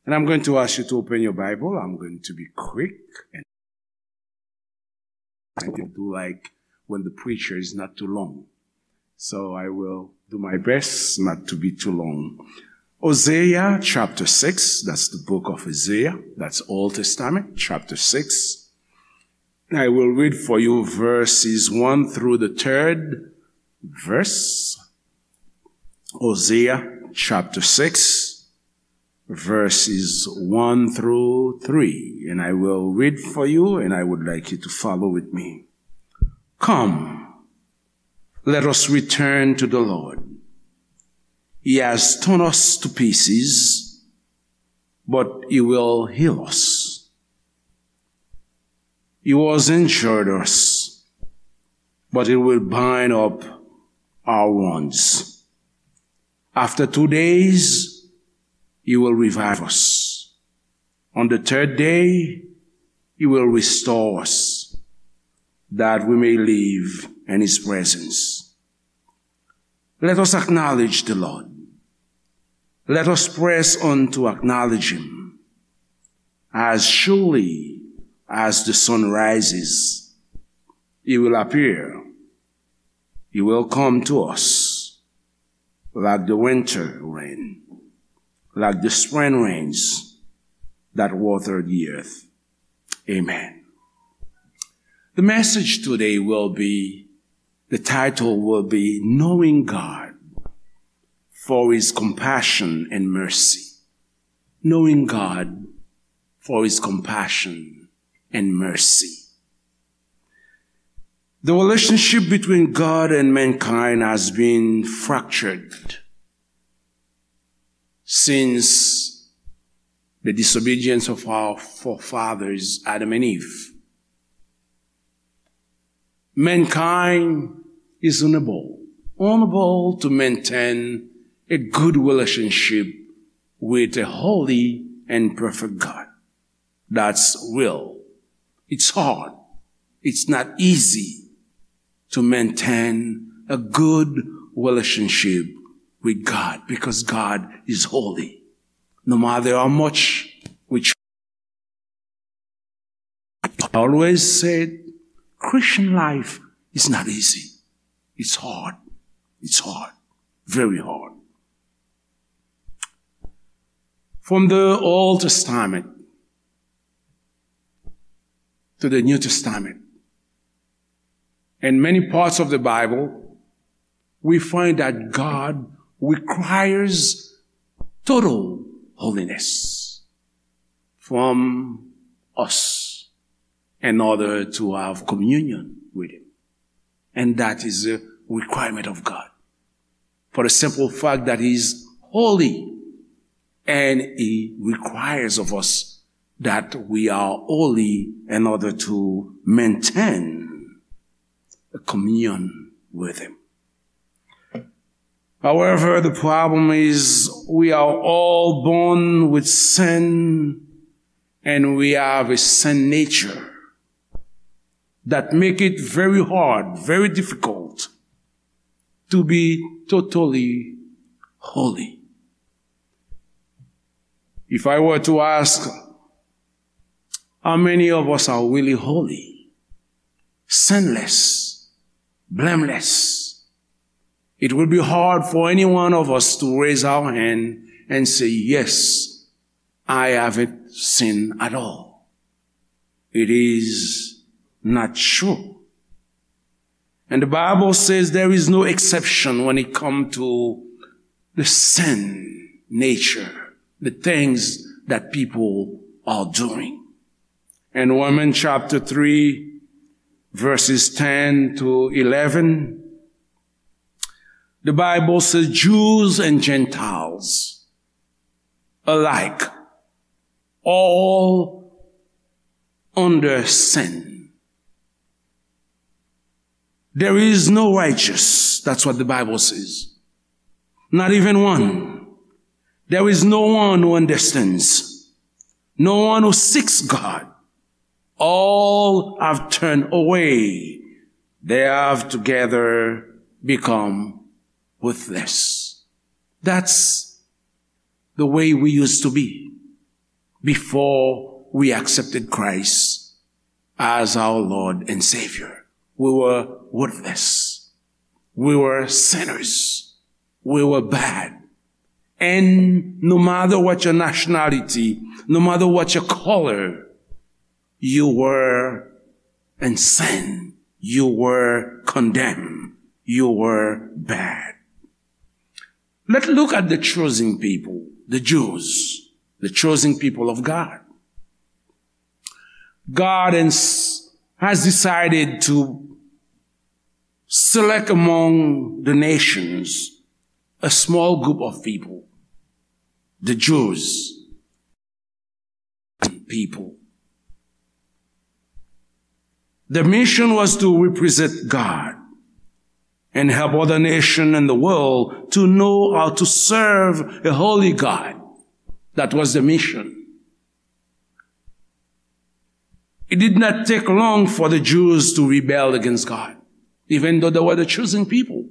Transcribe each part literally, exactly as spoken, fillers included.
And I'm going to ask you to open your Bible. I'm going to be quick. And I do like when the preacher is not too long. So I will do my best not to be too long. Hosea chapter six, that's the book of Hosea, that's Old Testament, chapter six. I will read for you verses one through the third verse. Hosea chapter six, verses one through three. And I will read for you, and I would like you to follow with me. Come, let us return to the Lord. He has torn us to pieces, but he will heal us. He was injured us, but he will bind up our wounds. After two days, he will revive us. On the third day, he will restore us, that we may live in his presence. Let us acknowledge the Lord. Let us press on to acknowledge him. As surely as the sun rises, he will appear. He will come to us like the winter rain, like the spring rains that water the earth. Amen. The message today will be, the title will be Knowing God for His Compassion and Mercy. Knowing God for His Compassion and Mercy. The relationship between God and mankind has been fractured since the disobedience of our forefathers, Adam and Eve. Mankind is unable, unable to maintain a good relationship with a holy and perfect God. That's real. It's hard. It's not easy to maintain a good relationship with God because God is holy. No matter how much we try, I always said, Christian life is not easy. It's hard. It's hard. Very hard. From the Old Testament to the New Testament, in many parts of the Bible, we find that God requires total holiness from us in order to have communion with Him. And that is a requirement of God. For the simple fact that He is holy, and He requires of us that we are holy in order to maintain a communion with Him. However, the problem is we are all born with sin, and we have a sin nature that make it very hard, very difficult to be totally holy. If I were to ask how many of us are really holy, sinless, blameless, it would be hard for any one of us to raise our hand and say, "Yes, I haven't sinned at all." It is not true. And the Bible says there is no exception when it comes to the sin nature, the things that people are doing. In Romans chapter three, verses ten to eleven, the Bible says, "Jews and Gentiles alike, all under sin." There is no righteous. That's what the Bible says. Not even one. There is no one who understands. No one who seeks God. All have turned away. They have together become worthless. That's the way we used to be. before we accepted Christ as our Lord and Savior. We were worthless. We were sinners. We were bad. And no matter what your nationality, no matter what your color, you were in sin. You were condemned. You were bad. Let's look at the chosen people, the Jews, the chosen people of God. God has decided to select among the nations a small group of people, the Jews. People. The mission was to represent God and help other nations in the world to know how to serve a holy God. That was the mission. It did not take long for the Jews to rebel against God, even though they were the chosen people.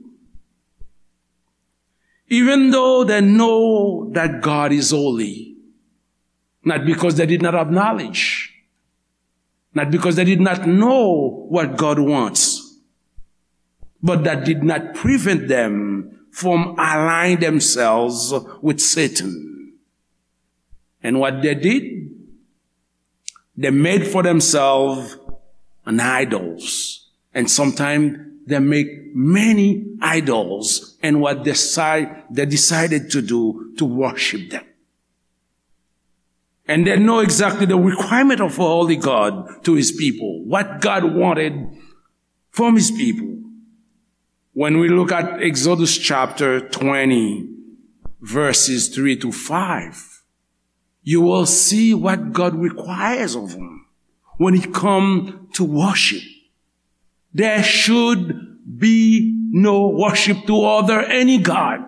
Even though they know that God is holy, not because they did not have knowledge, not because they did not know what God wants, but that did not prevent them from align themselves with Satan. And what they did, they made for themselves an idols. And sometimes they make many idols. And what they decide, they decided to do, to worship them. And they know exactly the requirement of a holy God to his people, what God wanted from his people. When we look at Exodus chapter twenty, verses three to five, you will see what God requires of them when it comes to worship. There should be no worship to other any god,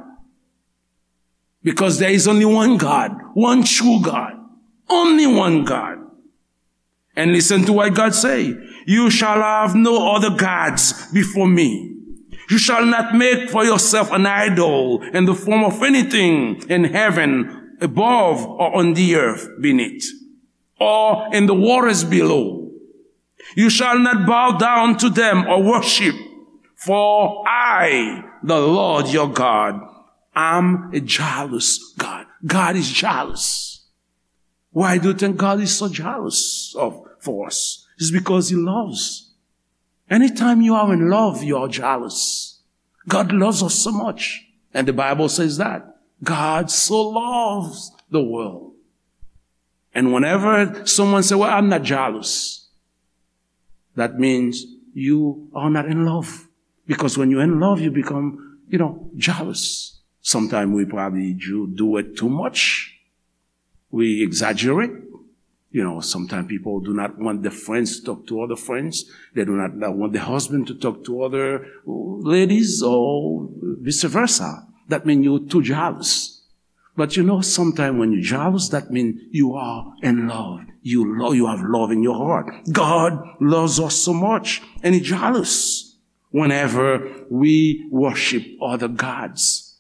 because there is only one God, one true God, only one God. And listen to what God say. You shall have no other gods before me. You shall not make for yourself an idol in the form of anything in heaven above or on the earth beneath, or in the waters below. You shall not bow down to them or worship, for I, the Lord your God, am a jealous God. God is jealous. Why do you think God is so jealous of, for us? It's because he loves. Anytime you are in love, you are jealous. God loves us so much. And the Bible says that God so loves the world. And whenever someone say, "Well, I'm not jealous," that means you are not in love. Because when you're in love, you become, you know, jealous. Sometimes we probably do, do it too much. We exaggerate. You know, sometimes people do not want the friends to talk to other friends. They do not want the husband to talk to other ladies or vice versa. That means you're too jealous. But you know, sometimes when you're jealous, that means you are in love. You love, you have love in your heart. God loves us so much, and he's jealous whenever we worship other gods.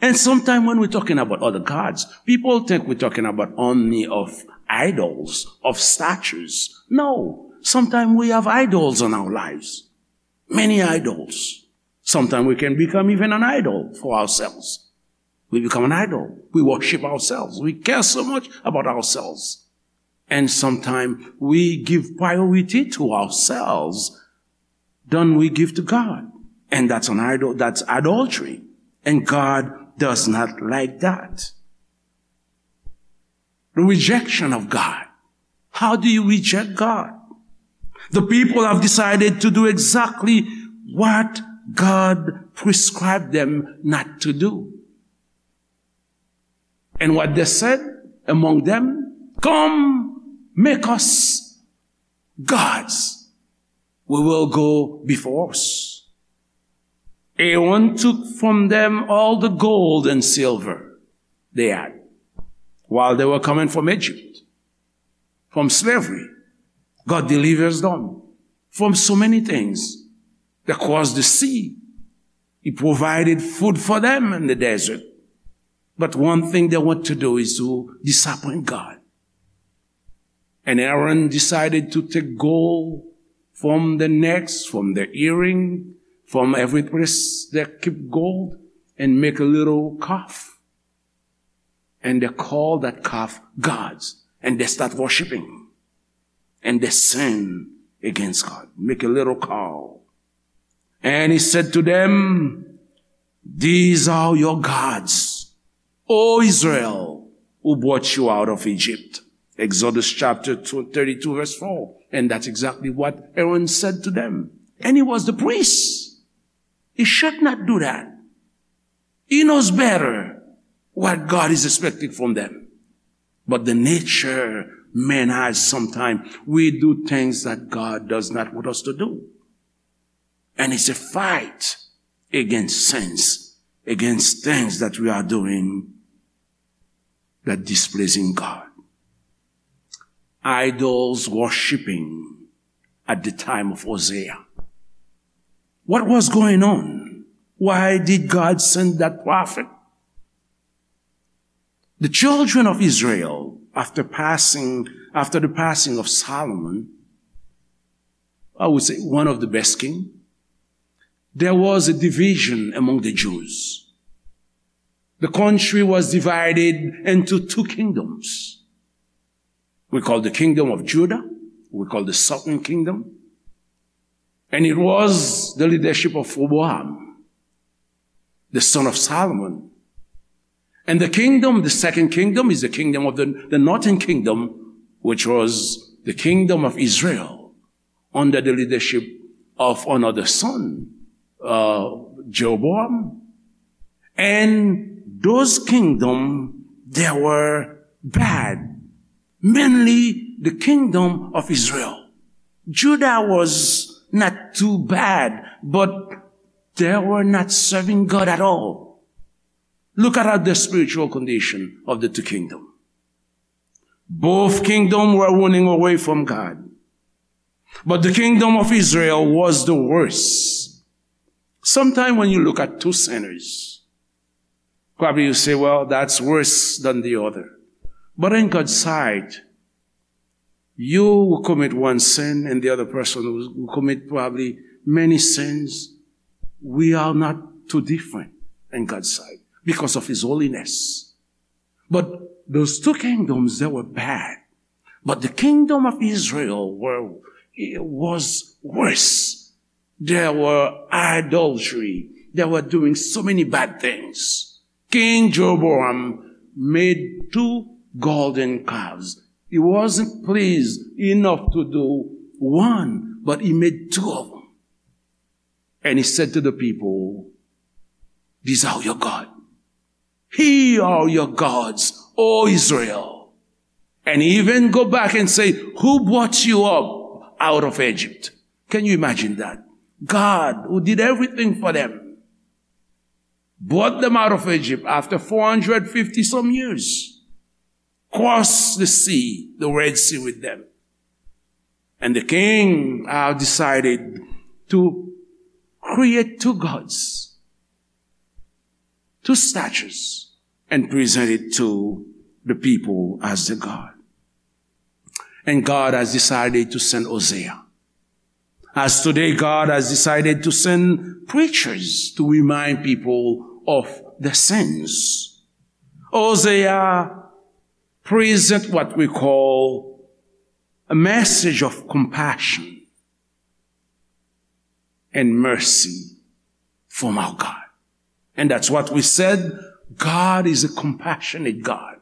And sometimes when we're talking about other gods, people think we're talking about only of idols, of statues. No, sometimes we have idols in our lives. Many idols. Sometimes we can become even an idol for ourselves. We become an idol. We worship ourselves. We care so much about ourselves. And sometimes we give priority to ourselves than we give to God. And that's an idol, that's adultery. And God does not like that. The rejection of God. How do you reject God? The people have decided to do exactly what God prescribed them not to do. And what they said among them, "Come, make us gods. We will go before us." Aaron took from them all the gold and silver they had while they were coming from Egypt, from slavery. God delivers them from so many things. They crossed the sea. He provided food for them in the desert. But one thing they want to do is to disappoint God. And Aaron decided to take gold from the necks, from the earring, from every place that keep gold, and make a little calf. And they call that calf gods. And they start worshiping. And they sin against God. Make a little calf. And he said to them, "These are your gods, O Israel, who brought you out of Egypt." Exodus chapter two, thirty-two, verse four. And that's exactly what Aaron said to them. And he was the priest. He should not do that. He knows better what God is expecting from them. But the nature man has, sometimes we do things that God does not want us to do. And it's a fight against sins, against things that we are doing that displeasing God. Idols worshiping at the time of Hosea. What was going on? Why did God send that prophet? The children of Israel, after passing, after the passing of Solomon, I would say one of the best king, there was a division among the Jews. The country was divided into two kingdoms. We call the kingdom of Judah, we call the southern kingdom. And it was the leadership of Rehoboam, the son of Solomon. And the kingdom, the second kingdom, is the kingdom of the, the northern kingdom, which was the kingdom of Israel, under the leadership of another son, uh, Jeroboam. And those kingdoms, they were bad. Mainly the kingdom of Israel. Judah was not too bad, but they were not serving God at all. Look at the spiritual condition of the two kingdoms. Both kingdoms were running away from God. But the kingdom of Israel was the worst. Sometimes when you look at two sinners, probably you say, "Well, that's worse than the other." But in God's sight, you will commit one sin and the other person will, will commit probably many sins. We are not too different in God's sight because of His holiness. But those two kingdoms, they were bad. But the kingdom of Israel were, was worse. There were adultery. They were doing so many bad things. King Jeroboam made two golden calves. He wasn't pleased enough to do one, but he made two of them. And he said to the people, "These are your God. Here are your gods, O Israel." And he even go back and say, "Who brought you up out of Egypt?" Can you imagine that? God, who did everything for them, brought them out of Egypt after four hundred fifty some years, crossed the sea, the Red Sea with them. And the king, uh, decided to create two gods, two statues, and present it to the people as the god. And God has decided to send Hosea. As today, God has decided to send preachers to remind people of the sins. Hosea present what we call a message of compassion and mercy from our God. And that's what we said. God is a compassionate God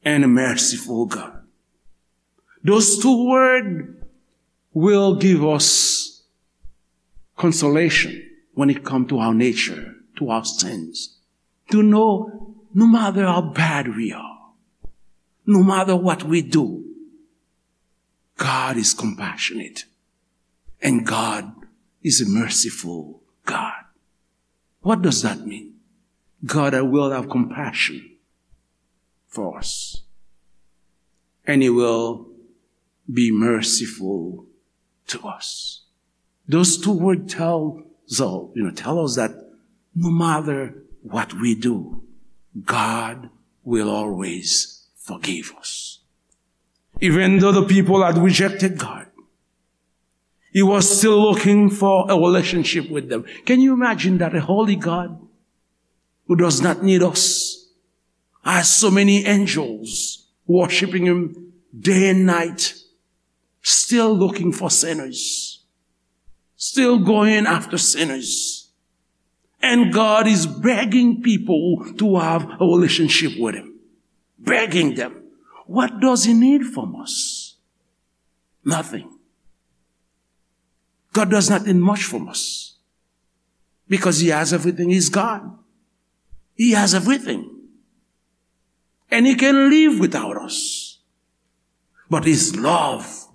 and a merciful God. Those two words will give us consolation when it comes to our nature, to our sins. To know, no matter how bad we are, no matter what we do, God is compassionate. And God is a merciful God. What does that mean? God will have compassion for us. And He will be merciful to us. Those two words tell, so, you know, tell us that no matter what we do, God will always forgive us. Even though the people had rejected God, he was still looking for a relationship with them. Can you imagine that a holy God who does not need us, has so many angels worshiping him day and night, still looking for sinners, still going after sinners. And God is begging people to have a relationship with him. Begging them. What does he need from us? Nothing. God does not need much from us. Because he has everything. He's God. He has everything. And he can live without us. But his love,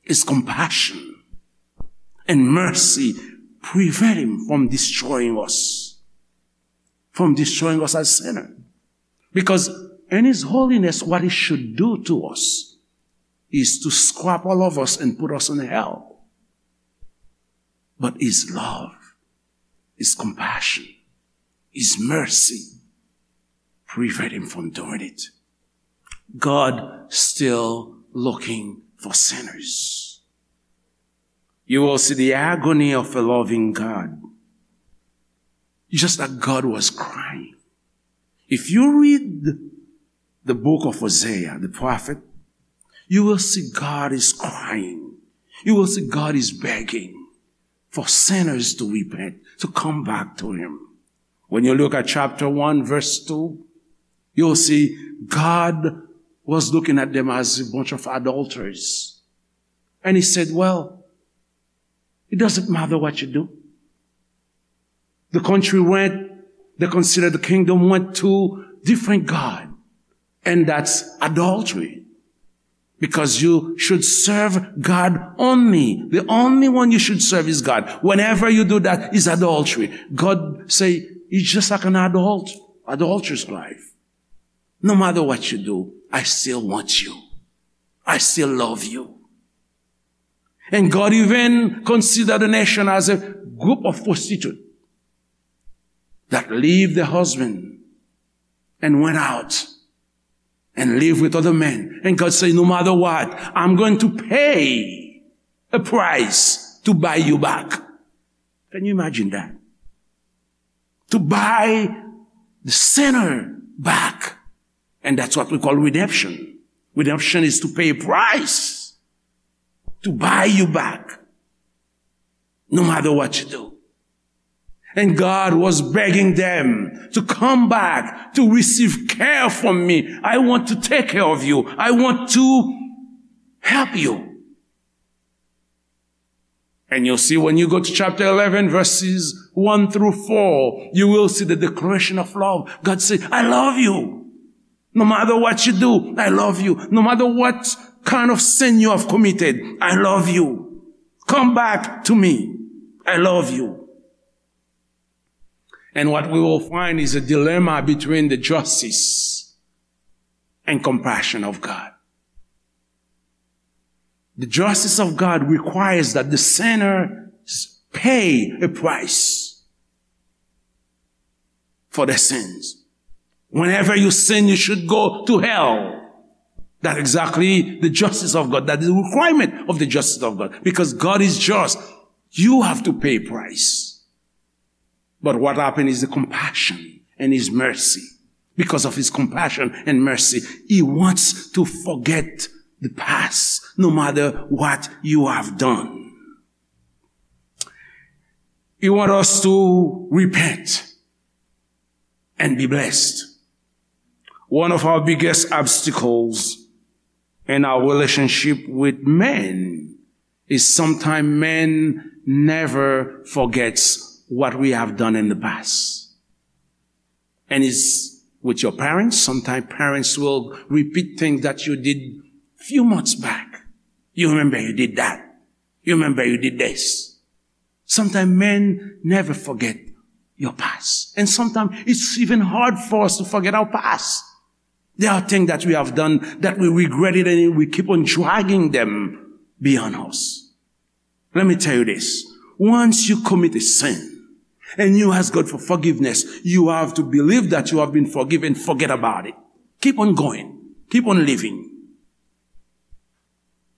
his compassion, and mercy prevent him from destroying us, from destroying us as sinners. Because in his holiness, what he should do to us is to scrap all of us and put us in hell. But his love, his compassion, his mercy prevent him from doing it. God still looking for sinners. You will see the agony of a loving God. Just like God was crying. If you read the book of Hosea, the prophet, you will see God is crying. You will see God is begging for sinners to repent, to come back to him. When you look at chapter one, verse two, you'll see God was looking at them as a bunch of adulterers. And he said, "Well, it doesn't matter what you do." The country went, they considered the kingdom went to different God. And that's adultery. Because you should serve God only. The only one you should serve is God. Whenever you do that is adultery. God say, "It's just like an adult, adulterous life. No matter what you do, I still want you. I still love you." And God even consider the nation as a group of prostitute that leave the husband and went out and live with other men. And God say, "No matter what, I'm going to pay a price to buy you back." Can you imagine that? To buy the sinner back. And that's what we call redemption. Redemption is to pay a price to buy you back, no matter what you do. And God was begging them to come back, to receive care from me. I want to take care of you. I want to help you. And you'll see when you go to chapter eleven, verses one through four, you will see the declaration of love. God said, "I love you. No matter what you do, I love you. No matter what kind of sin you have committed, I love you. Come back to me. I love you." And what we will find is a dilemma between the justice and compassion of God. The justice of God requires that the sinner pay a price for their sins. Whenever you sin, you should go to hell. That's exactly the justice of God. That is the requirement of the justice of God. Because God is just. You have to pay a price. But what happened is the compassion and his mercy. Because of his compassion and mercy, he wants to forget the past, no matter what you have done. He wants us to repent and be blessed. One of our biggest obstacles in our relationship with men is sometimes men never forgets what we have done in the past. And it's with your parents. Sometimes parents will repeat things that you did few months back. You remember you did that. You remember you did this. Sometimes men never forget your past. And sometimes it's even hard for us to forget our past. There are things that we have done that we regret it and we keep on dragging them beyond us. Let me tell you this. Once you commit a sin and you ask God for forgiveness, you have to believe that you have been forgiven. Forget about it. Keep on going. Keep on living.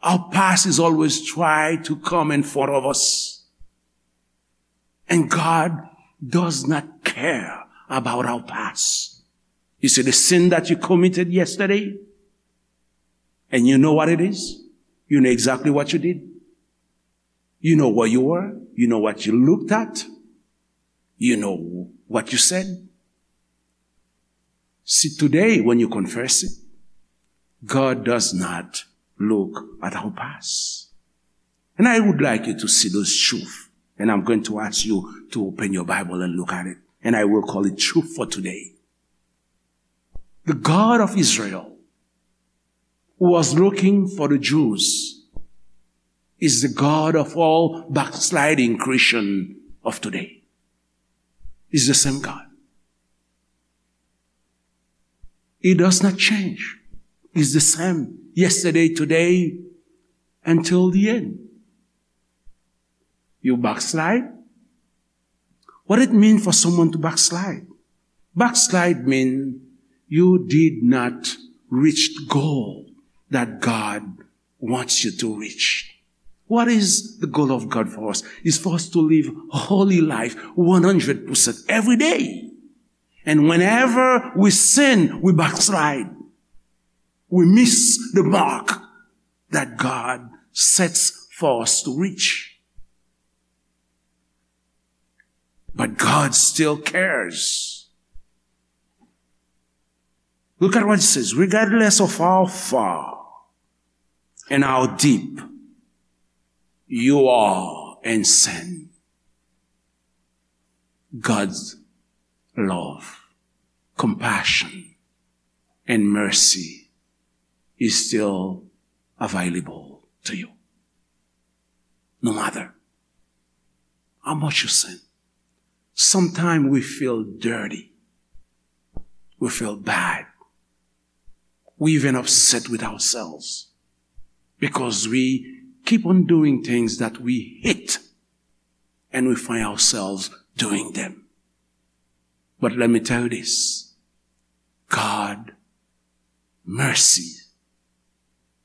Our past is always try to come in front of us. And God does not care about our past. You see, the sin that you committed yesterday, and you know what it is. You know exactly what you did. You know where you were. You know what you looked at. You know what you said. See, today, when you confess it, God does not look at our past. And I would like you to see those truth. And I'm going to ask you to open your Bible and look at it. And I will call it truth for today. The God of Israel, who was looking for the Jews, is the God of all backsliding Christian of today. Is the same God. He does not change. He's the same yesterday, today, until the end. You backslide? What it mean for someone to backslide? Backslide mean you did not reach the goal that God wants you to reach. What is the goal of God for us? Is for us to live holy life one hundred percent every day. And whenever we sin, we backslide. We miss the mark that God sets for us to reach. But God still cares. Look at what it says. Regardless of how far and how deep you are in sin, God's love, compassion, and mercy is still available to you. No matter how much you sin, sometimes we feel dirty. We feel bad. We even upset with ourselves because we keep on doing things that we hate, and we find ourselves doing them. But let me tell you this, God mercy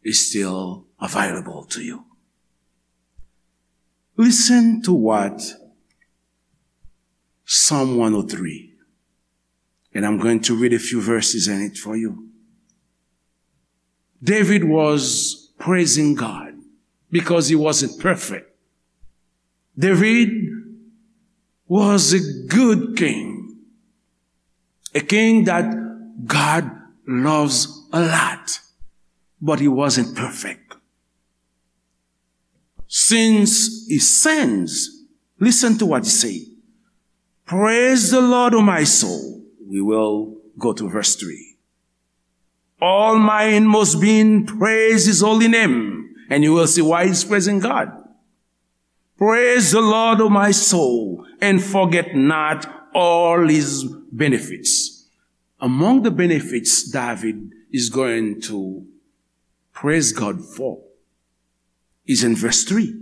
is still available to you. Listen to what Psalm one oh three, and I'm going to read a few verses in it for you. David was praising God because he wasn't perfect. David was a good king, a king that God loves a lot, but he wasn't perfect. Since he sins, listen to what he say. Praise the Lord, O my soul. We will go to verse three. All my inmost being, praise his holy name. And you will see why he's praising God. Praise the Lord, O my soul, and forget not all his benefits. Among the benefits David is going to praise God for is in verse three.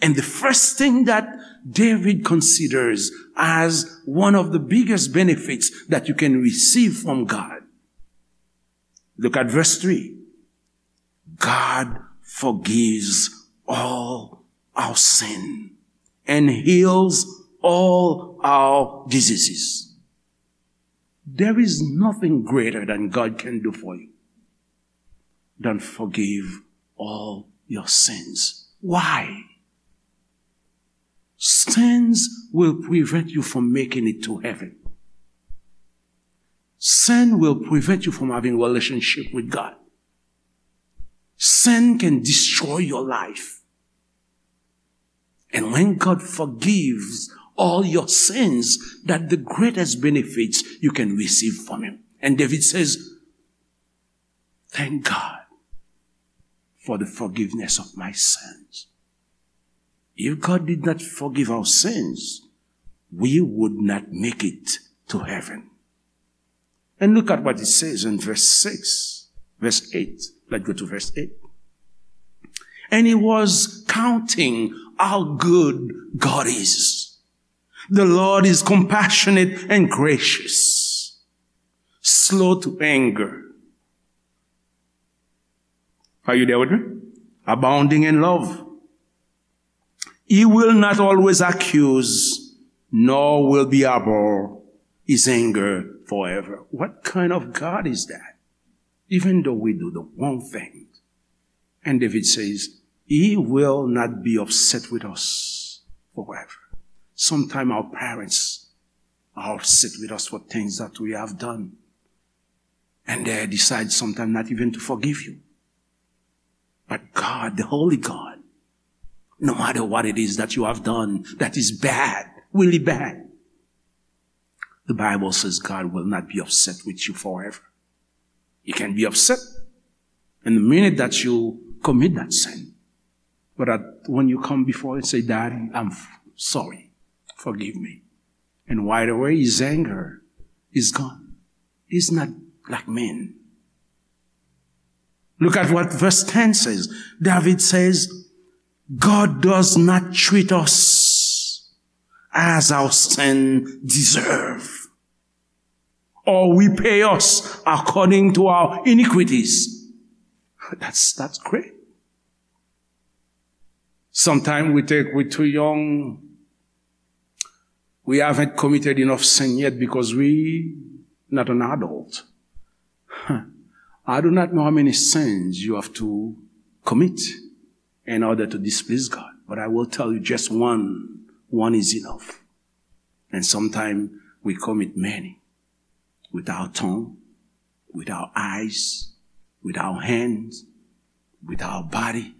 And the first thing that David considers as one of the biggest benefits that you can receive from God. Look at verse three. God forgives all our sin and heals all our diseases. There is nothing greater than God can do for you than forgive all your sins. Why? Sins will prevent you from making it to heaven. Sin will prevent you from having relationship with God. Sin can destroy your life. And when God forgives all your sins, that the greatest benefits you can receive from him. And David says, "Thank God for the forgiveness of my sins." If God did not forgive our sins, we would not make it to heaven. And look at what it says in verse six, verse eight. Let's go to verse eight. And he was counting how good God is. The Lord is compassionate and gracious, slow to anger. Are you there with me? abounding in love. He will not always accuse, nor will be abhor his anger forever. What kind of God is that? Even though we do the wrong thing. And David says, he will not be upset with us forever. Sometimes our parents are upset with us for things that we have done. And they decide sometimes not even to forgive you. But God, the holy God, no matter what it is that you have done that is bad, really bad, the Bible says God will not be upset with you forever. He can be upset in the minute that you commit that sin. But at, when you come before and say, "Daddy, I'm f-, sorry. Forgive me." And right away, his anger is gone. He's not like men. Look at what verse ten says. David says, "God does not treat us as our sin deserve, or repay us according to our iniquities." That's, that's great. Sometimes we think we're too young. We haven't committed enough sin yet because we not an adult. I do not know how many sins you have to commit in order to displease God, but I will tell you just one. One is enough. And sometimes we commit many with our tongue, with our eyes, with our hands, with our body,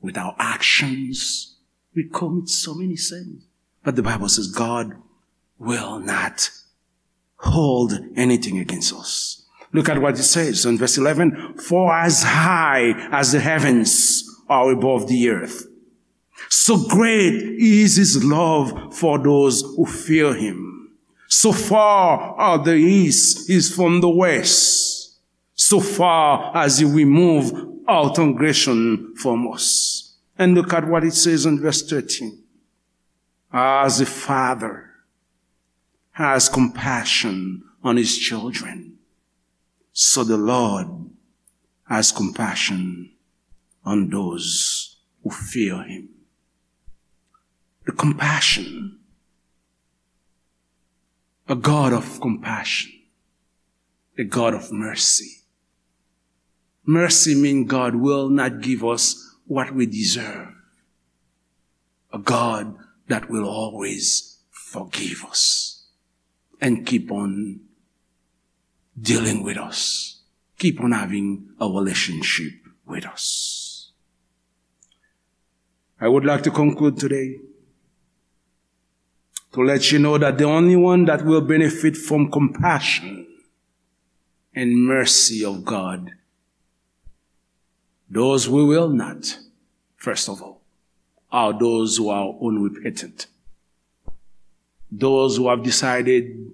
with our actions. We commit so many sins. But the Bible says God will not hold anything against us. Look at what it says in verse eleven. "For as high as the heavens are above the earth, so great is his love for those who fear him. So far as the east is from the west, so far as he remove our transgression from us." And look at what it says in verse thirteen. "As a father has compassion on his children, so the Lord has compassion on those who fear him." The compassion, a God of compassion, a God of mercy. Mercy means God will not give us what we deserve. A God that will always forgive us and keep on dealing with us, keep on having a relationship with us. I would like to conclude today to let you know that the only one that will benefit from compassion and mercy of God, those who will not, first of all, are those who are unrepentant, those who have decided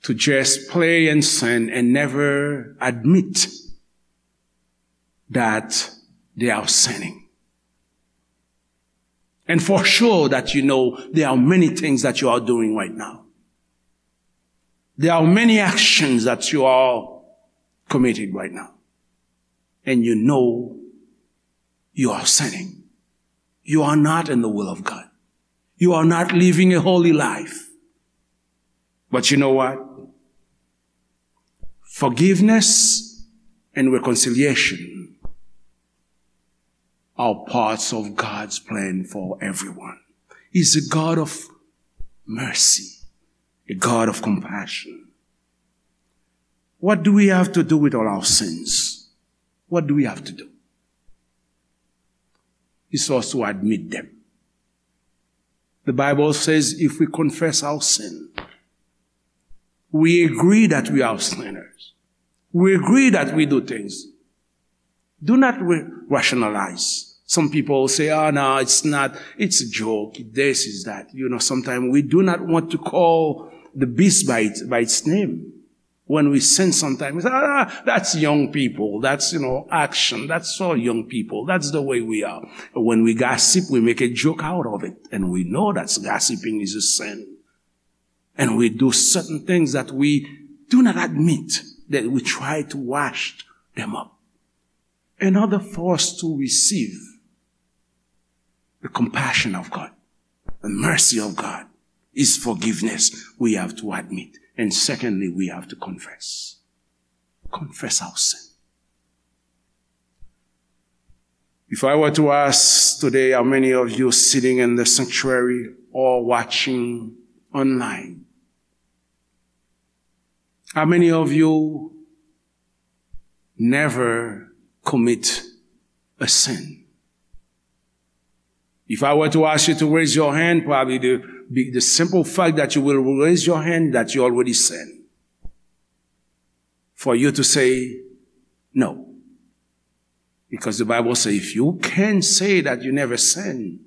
to just play and sin and never admit that they are sinning. And for sure that you know there are many things that you are doing right now. There are many actions that you are committing right now. And you know you are sinning. You are not in the will of God. You are not living a holy life. But you know what? Forgiveness and reconciliation are parts of God's plan for everyone. He's a God of mercy, a God of compassion. What do we have to do with all our sins? What do we have to do? It's for us to admit them. The Bible says if we confess our sin, we agree that we are sinners. We agree that we do things. Do not rationalize. Some people say, "Oh, no, it's not, it's a joke, this is that." You know, sometimes we do not want to call the beast by its, by its name. When we sin sometimes, we say, "Ah, that's young people. That's, you know, action. That's all young people. That's the way we are." When we gossip, we make a joke out of it. And we know that gossiping is a sin. And we do certain things that we do not admit, that we try to wash them up. In order for us to receive the compassion of God, the mercy of God, is forgiveness. We have to admit. And secondly, we have to confess. Confess our sin. If I were to ask today how many of you sitting in the sanctuary or watching online, how many of you never commit a sin? If I were to ask you to raise your hand, probably the, the simple fact that you will raise your hand that you already sin. For you to say no. Because the Bible says if you can say that you never sin,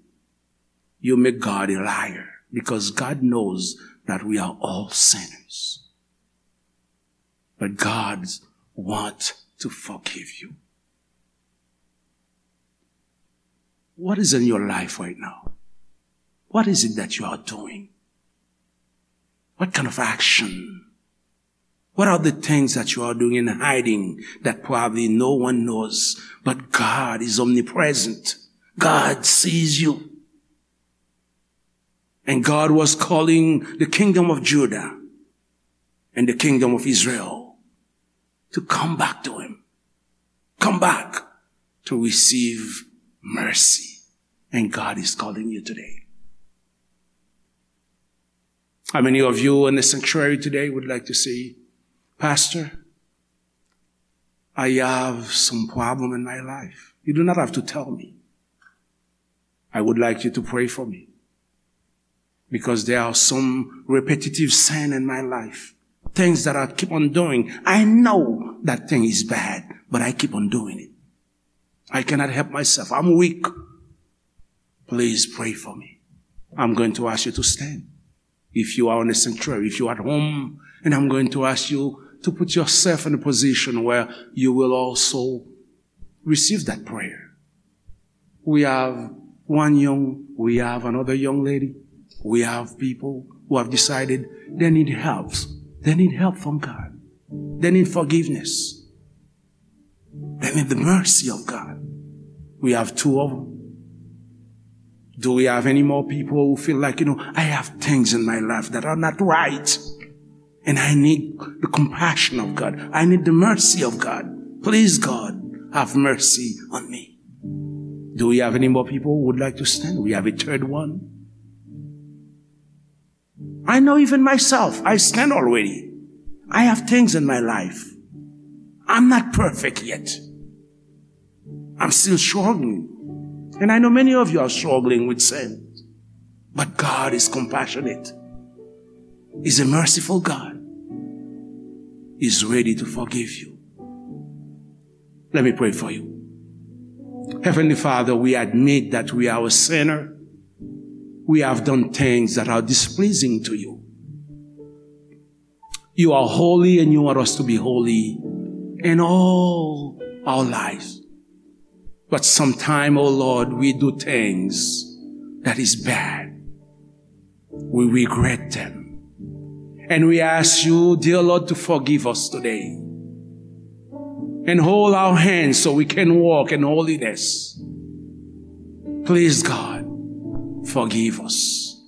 you make God a liar. Because God knows that we are all sinners. But God wants to forgive you. What is in your life right now? What is it that you are doing? What kind of action? What are the things that you are doing and hiding that probably no one knows, but God is omnipresent? God sees you. And God was calling the kingdom of Judah and the kingdom of Israel to come back to Him. Come back to receive mercy. And God is calling you today. How many of you in the sanctuary today would like to say, Pastor, I have some problem in my life? You do not have to tell me. I would like you to pray for me. Because there are some repetitive sin in my life. Things that I keep on doing. I know that thing is bad, but I keep on doing it. I cannot help myself. I'm weak. Please pray for me. I'm going to ask you to stand. If you are in a sanctuary, if you are at home, and I'm going to ask you to put yourself in a position where you will also receive that prayer. We have one young, we have another young lady. We have people who have decided they need help. They need help from God. They need forgiveness. They need the mercy of God. We have two of them. Do we have any more people who feel like, you know, I have things in my life that are not right? And I need the compassion of God. I need the mercy of God. Please, God, have mercy on me. Do we have any more people who would like to stand? We have a third one. I know even myself, I stand already. I have things in my life. I'm not perfect yet. I'm still struggling. And I know many of you are struggling with sin. But God is compassionate. He's a merciful God. He's ready to forgive you. Let me pray for you. Heavenly Father, we admit that we are a sinner. We have done things that are displeasing to you. You are holy and you want us to be holy in all our lives. But sometime, oh Lord, we do things that is bad. We regret them. And we ask you, dear Lord, to forgive us today. And hold our hands so we can walk in holiness. Please, God, forgive us.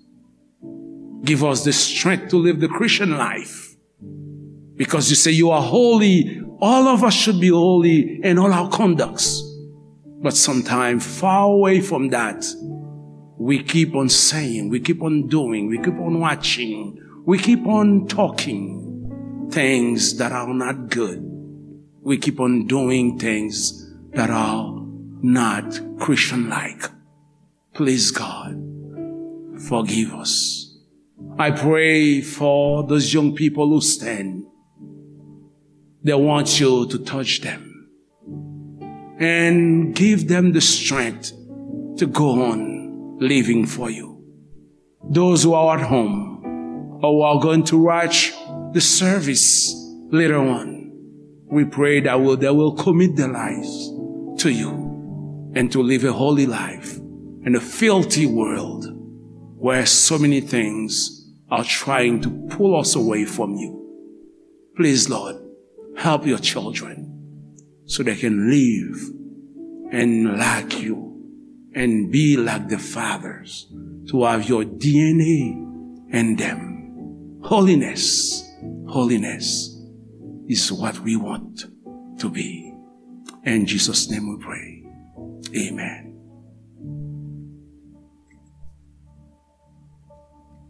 Give us the strength to live the Christian life. Because you say you are holy, all of us should be holy in all our conducts. But sometimes, far away from that, we keep on saying, we keep on doing, we keep on watching, we keep on talking things that are not good. We keep on doing things that are not Christian-like. Please, God, forgive us. I pray for those young people who stand. They want you to touch them and give them the strength to go on living for you. Those who are at home or who are going to watch the service later on, we pray that will, they will commit their lives to you and to live a holy life in a filthy world where so many things are trying to pull us away from you. Please, Lord, help your children so they can live and like you and be like the fathers, to have your D N A in them. Holiness, holiness is what we want to be. In Jesus' name we pray. Amen.